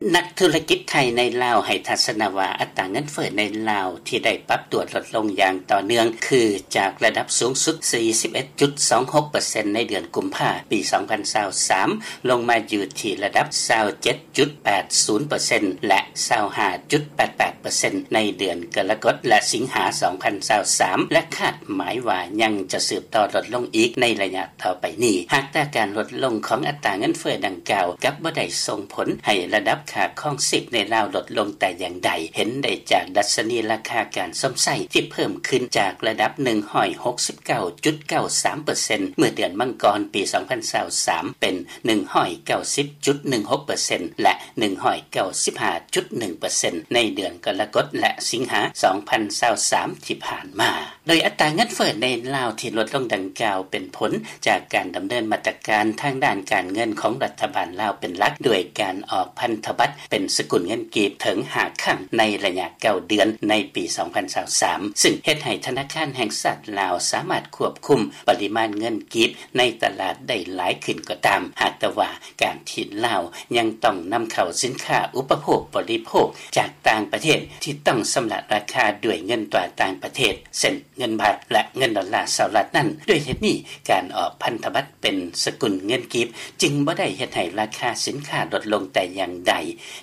ນັກທຸລະກິດໄທໃນລາວໃຫ້ທັດສະນະວ່າ ອັດຕາເງິນເຟີ້ໃນລາວທີ່ໄດ້ປັບຕົວລົດລົງຢ່າງຕໍ່ເນື່ອງ ຄືຈາກລະດັບສູງສຸດ ສີ່ສິບເອັດຈຸດສອງຫົກເປີເຊັນ ໃນເດືອນກຸມພາ ປີສອງພັນຊາວສາມ ລົງມາຢູ່ທີ່ລະດັບ ຊາວເຈັດຈຸດແປດສູນເປີເຊັນ ແລະ ຊາວຫ້າຈຸດແປດແປດເປີເຊັນ ໃນເດືອນກໍລະກົດ ແລະ ສິງຫາ ສອງພັນຊາວສາມ ແລະ ຄາດໝາຍວ່າຍັງຈະສືບຕໍ່ລົດລົງອີກໃນໄລຍະ ຕໍ່ໄປນີ້. ຫາກແຕ່ການລົດລົງຂອງອັດຕາເງິນເຟີ້ດັ່ງກ່າວ ກັບບໍ່ໄດ້ສົ່ງຜົນໃຫ້ລະດັບຄ່າຄອງຊີບໃນລາວລົດລົງແຕ່ຢ່າງໃດ, ເຫັນໄດ້ຈາກດັດຊະນີລາຄາການຊົມໃຊ້ທີ່ເພີ່ມຂຶ້ນຈາກລະດັບ ໜຶ່ງຮ້ອຍຫົກສິບເກົ້າຈຸດເກົ້າສາມເປີເຊັນ ເມື່ອເດືອນມັງກອນປີສອງພັນຊາວສາມ ເປັນ ໜຶ່ງຮ້ອຍເກົ້າສິບຈຸດໜຶ່ງຫົກເປີເຊັນ ແລະ ໜຶ່ງຮ້ອຍເກົ້າສິບຫ້າຈຸດໜຶ່ງເປີເຊັນ ໃນເດືອນກໍລະກົດ ແລະ ສິງຫາ ສອງພັນຊາວສາມ ທີ່ຜ່ານມາ. ໂດຍອັດຕາເງິນເຟີ້ໃນລາວທີ່ລົດລົງດັ່ງກ່າວ ເປັນຜົນຈາກການດຳເນີນມາດຕະການທາງດ້ານການເງິນຂອງລັດຖະບານລາວເປັນຫຼັກ, ດ້ວຍການອອກພັນທະບັດເປັນສະກຸນເງິນກີບເຖິງຫ້າຄັ້ງໃນໄລຍະເກົ້າເດືອນໃນປີສອງພັນຊາວສາມ ຊຶ່ງເຮັດໃຫ້ທະນາຄານແຫ່ງຊາດລາວສາມາດຄວບຄຸມປະລິມານເງິນກີບໃນຕະຫຼາດໄດ້ຫຼາຍຂຶ້ນກໍຕາມ, ຫາກແຕ່ວ່າ ການທີ່ລາວຍັງຕ້ອງນຳເຂົ້າສິນຄ້າອຸປະໂພກບໍລິໂພກຈາກຕ່າງປະເທດ ທີ່ຕ້ອງຊຳລະລາຄາດ້ວຍເງິນຕາຕ່າງປະເທດ ເຊັ່ນ ເງິນບາດ ແລະ ເງິນດອນລາສະຫະລັດນັ້ນ. ດ້ວຍເຫດນີ້, ການອອກພັນທະບັດເປັນສະກຸນເງິນກີບ ຈຶ່ງບໍ່ໄດ້ເຮັດໃຫ້ລາຄາສິນຄ້າລົດລົງແຕ່ຢ່າງໃດ,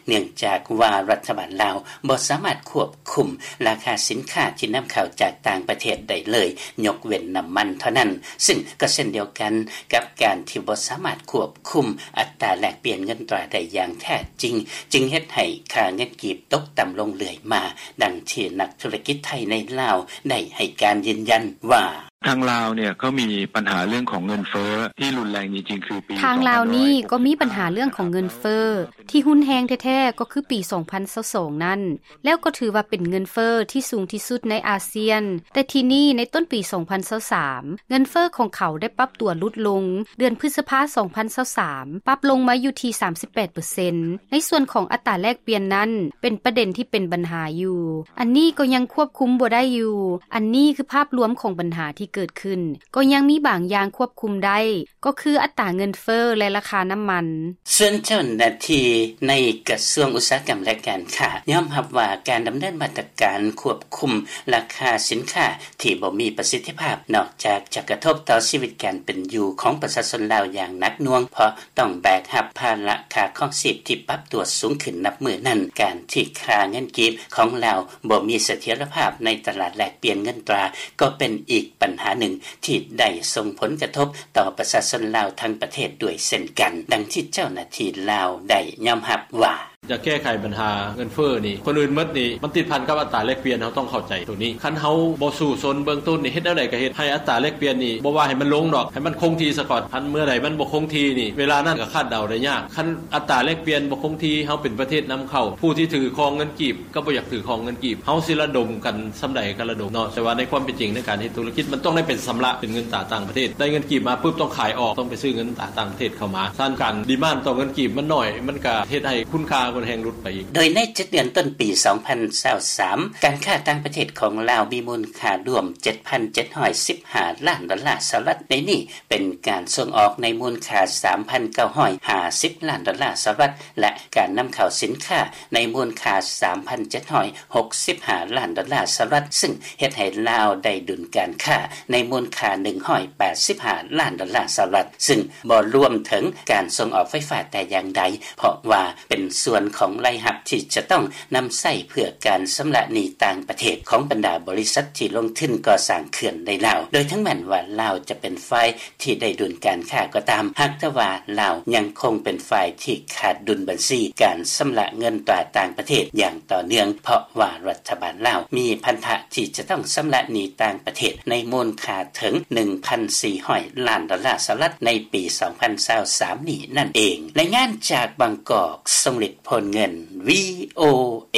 ເນື່ອງຈາກວ່າລັດຖະບານລາວບໍ່ສາມາດຄວບຄຸມລາຄາສິນຄ້າທີ່ນຳເຂົ້າຈາກຕ່າງປະເທດໄດ້ເລີຍ, ຍົກເວັ້ນນ້ຳມັນເທົ່ານັ້ນ. ຊຶ່ງກໍເຊັ່ນດຽວກັນກັບການທີ່ບໍ່ສາມາດຄວບຄຸມອັດຕາແລກປ່ຽນເງິນຕາໄດ້ຢ່າງແທ້ຈິງ, ຈຶ່ງເຮັດໃຫ້ຄ່າເງິນກີບຕົກຕ່ຳລົງເລື້ອຍມາ, ດັ່ງທີ່ນັກທຸລະກິດໄທໃນລາວໄດ້ໃຫ້ການຢືນຢັນວ່າ: ທາງລາວນີ້ກໍມີບັນຫາເລື່ອງຂອງເງິນເຟີ້ທີ່ຮຸນແຮງຈິງໆ ຄືປີ ທາງລາວນີ້ກໍມີບັນຫາເລື່ອງຂອງເງິນເຟີ້ທີ່ຮຸນແຮງແທ້ໆ ກໍຄືປີສອງພັນຊາວສອງນັ້ນ, ແລ້ວກໍຖືວ່າເປັນເງິນເຟີ້ທີ່ສູງທີ່ສຸດໃນອາຊຽນ. ແຕ່ທີນີ້ໃນຕົ້ນປີສອງພັນຊາວສາມ ເງິນເຟີ້ຂອງເຂົາໄດ້ປັບຕົວຫຼຸດລົງ, ເດືອນພຶດສະພາສອງພັນຊາວສາມ ປັບລົງມາຢູ່ທີ່ສາມສິບແປດເປີເຊັນ. ໃນສ່ວນຂອງອັດຕາແລກປ່ຽນນັ້ນ ເປັນປະເດັນທີ່ເປັນບັນຫາຢູ່, ອັນນີ້ກໍຍັງຄວບຄຸມບໍ່ໄດ້ຢູ່. ອັນນີ້ຄືພາບລວມຂອງບັນຫາທີ່ເກີດຂຶ້ນ, ກໍຍັງມີບາງຢ່າງຄວບຄຸມໄດ້, ກໍຄືອັດຕາເງິນເຟີ້ ແລະ ລາຄານ້ຳມັນ. ສ່ວນເຈົ້າໜ້າທີ່ໃນກະຊວງອຸດສາຫະກຳ ແລະ ການຄ້າ ຍອມຮັບວ່າການດຳເນີນມາດຕະການຄວບຄຸມລາຄາສິນຄ້າທີ່ບໍ່ມີປະສິດທິພາບ ນອກຈາກຈະກະທົບຕໍ່ຊີວິດການເປັນຢູ່ຂອງປະຊາຊົນລາວຢ່າງໜັກໜ່ວງ ເພາະຕ້ອງແບກຮັບພາລະຄ່າຄອງຊີບທີ່ປັບຕົວສູງຂຶ້ນນັບມື້ນັ້ນ, ການທີ່ຄ່າເງິນກີບຂອງລາວບໍ່ມີສະຖຽນລະພາບໃນຕະຫຼາດແລກປ່ຽນເງິນຕາ ກໍເປັນອີກບັນຫາໜຶ່ງທີ່ໄດ້ສົ່ງຜົນກະທົບຕໍ່ປະຊາຊົນລາວທັງປະເທດດ້ວຍເຊັ່ນກັນ, ດັ່ງທີ່ເຈົ້າໜ້າທີ່ລາວໄດ້ຍອມຮັບວ່າ: ຢາກແກ້ໄຂບັນຫາເງິນເຟີ້ນີ້ ກ່ອນອື່ນໝົດນີ້ ມັນຕິດພັນກັບອັດຕາແລກປ່ຽນ, ເຮົາຕ້ອງເຂົ້າໃຈໂຕນີ້. ຄັນເຮົາບໍ່ສູ້ຊົນເບື້ອງຕົ້ນນີ້ ເຮັດແນວໃດກໍເຮັດໃຫ້ອັດຕາແລກປ່ຽນນີ້ ບໍ່ວ່າໃຫ້ມັນລົງດອກ, ໃຫ້ມັນຄົງທີ່ສາກ່ອນ. ຄັນເມື່ອໃດມັນບໍ່ຄົງທີ່ນີ້ ເວລານັ້ນກໍຄາດເດົາໄດ້ຍາກ. ຄັນອັດຕາແລກປ່ຽນບໍ່ຄົງທີ່, ເຮົາເປັນປະເທດນຳເຂົ້າ, ຜູ້ທີ່ຖືຄອງເງິນກີບ ກໍບໍ່ຢາກຖືຄອງເງິນກີບ. ເຮົາຊິລະດົມກັນສ່ຳໃດກໍລະດົມເນາະ, ແຕ່ວ່າໃນຄວາມເປັນຈິງໃນການເຮັດທຸລະກິດ ມັນຕ້ອງໄດ້ເປັນຊຳລະເປັນເງິນຕາຕ່າງປະເທດ. ໄດ້ເງິນກີບມາປຶບ ຕ້ອງຂາຍອອກ, ຕ້ອງໄປຊື້ເງິນຕາຕ່າງປະເທດເຂົ້າມາ. ສະນັ້ນ ການດີມານຕໍ່ເງິນກີບມັນໜ້ອຍ, ມັນກະເຮັດໃຫ້ຄຸນຄ່າມັນແຮງຫຼຸດໄປອີກ. ໂດຍໃນເຈັດເດືອນຕົ້ນປີສອງພັນຊາວສາມ ການຄ້າຕ່າງປະເທດຂອງລາວມີມູນຄ່າລວມເຈັດພັນເຈັດຮ້ອຍສິບຫ້າລ້ານດອນລາສະຫະລັດ, ໃນນີ້ເປັນການສົ່ງອອກໃນມູນຄ່າສາມພັນເກົ້າຮ້ອຍຫ້າສິບລ້ານດອນລາສະຫະລັດ ແລະ ການນຳເຂົ້າສິນຄ້າໃນມູນຄ່າສາມພັນເຈັດຮ້ອຍຫົກສິບຫ້າລ້ານດອນລາສະຫະລັດ, ຊຶ່ງເຮັດໃຫ້ລາວໄດ້ດຸນການຄ້າໃນມູນຄ່າໜຶ່ງຮ້ອຍແປດສິບຫ້າລ້ານດອນລາສະຫະລັດ, ຊຶ່ງບໍ່ລວມເຖິງການສົ່ງອອກໄຟຟ້າແຕ່ຢ່າງໃດ, ເພາະວ່າເປັນສ່ວນຂອງລາຍຮັບທີ່ຈະຕ້ອງນຳໃຊ້ເພື່ອການຊຳລະໜີ້ຕ່າງປະເທດຂອງບັນດາບໍລິສັດທີ່ລົງທຶນກໍ່ສ້າງເຂື່ອນໃນລາວ. ໂດຍເຖິງແມ່ນວ່າລາວຈະເປັນຝ່າຍ ທີ່ໄດ້ດຸນການຄ້າກໍຕາມ, ຫາກແຕ່ວ່າລາວຍັງຄົງເປັນຝ່າຍທີ່ຂາດດຸນບັນຊີການຊຳລະເງິນຕາຕ່າງປະເທດຢ່າງຕໍ່ເນື່ອງ, ເພາະວ່າລັດຖະບານລາວມີພັນທະທີ່ຈະຕ້ອງຊຳລະໜີ້ຕ່າງປະເທດໃນມູນຄ່າເຖິງໜຶ່ງພັນສີ່ຮ້ອຍລ້ານດອນລາສະຫະລັດໃນປີສອງພັນຊາວສາມນີ້ນັ້ນເອງ. ລາຍງານຈາກບາງກອກ, ຊົງລິດ ໂພນເງິນ ວີໂອເອ.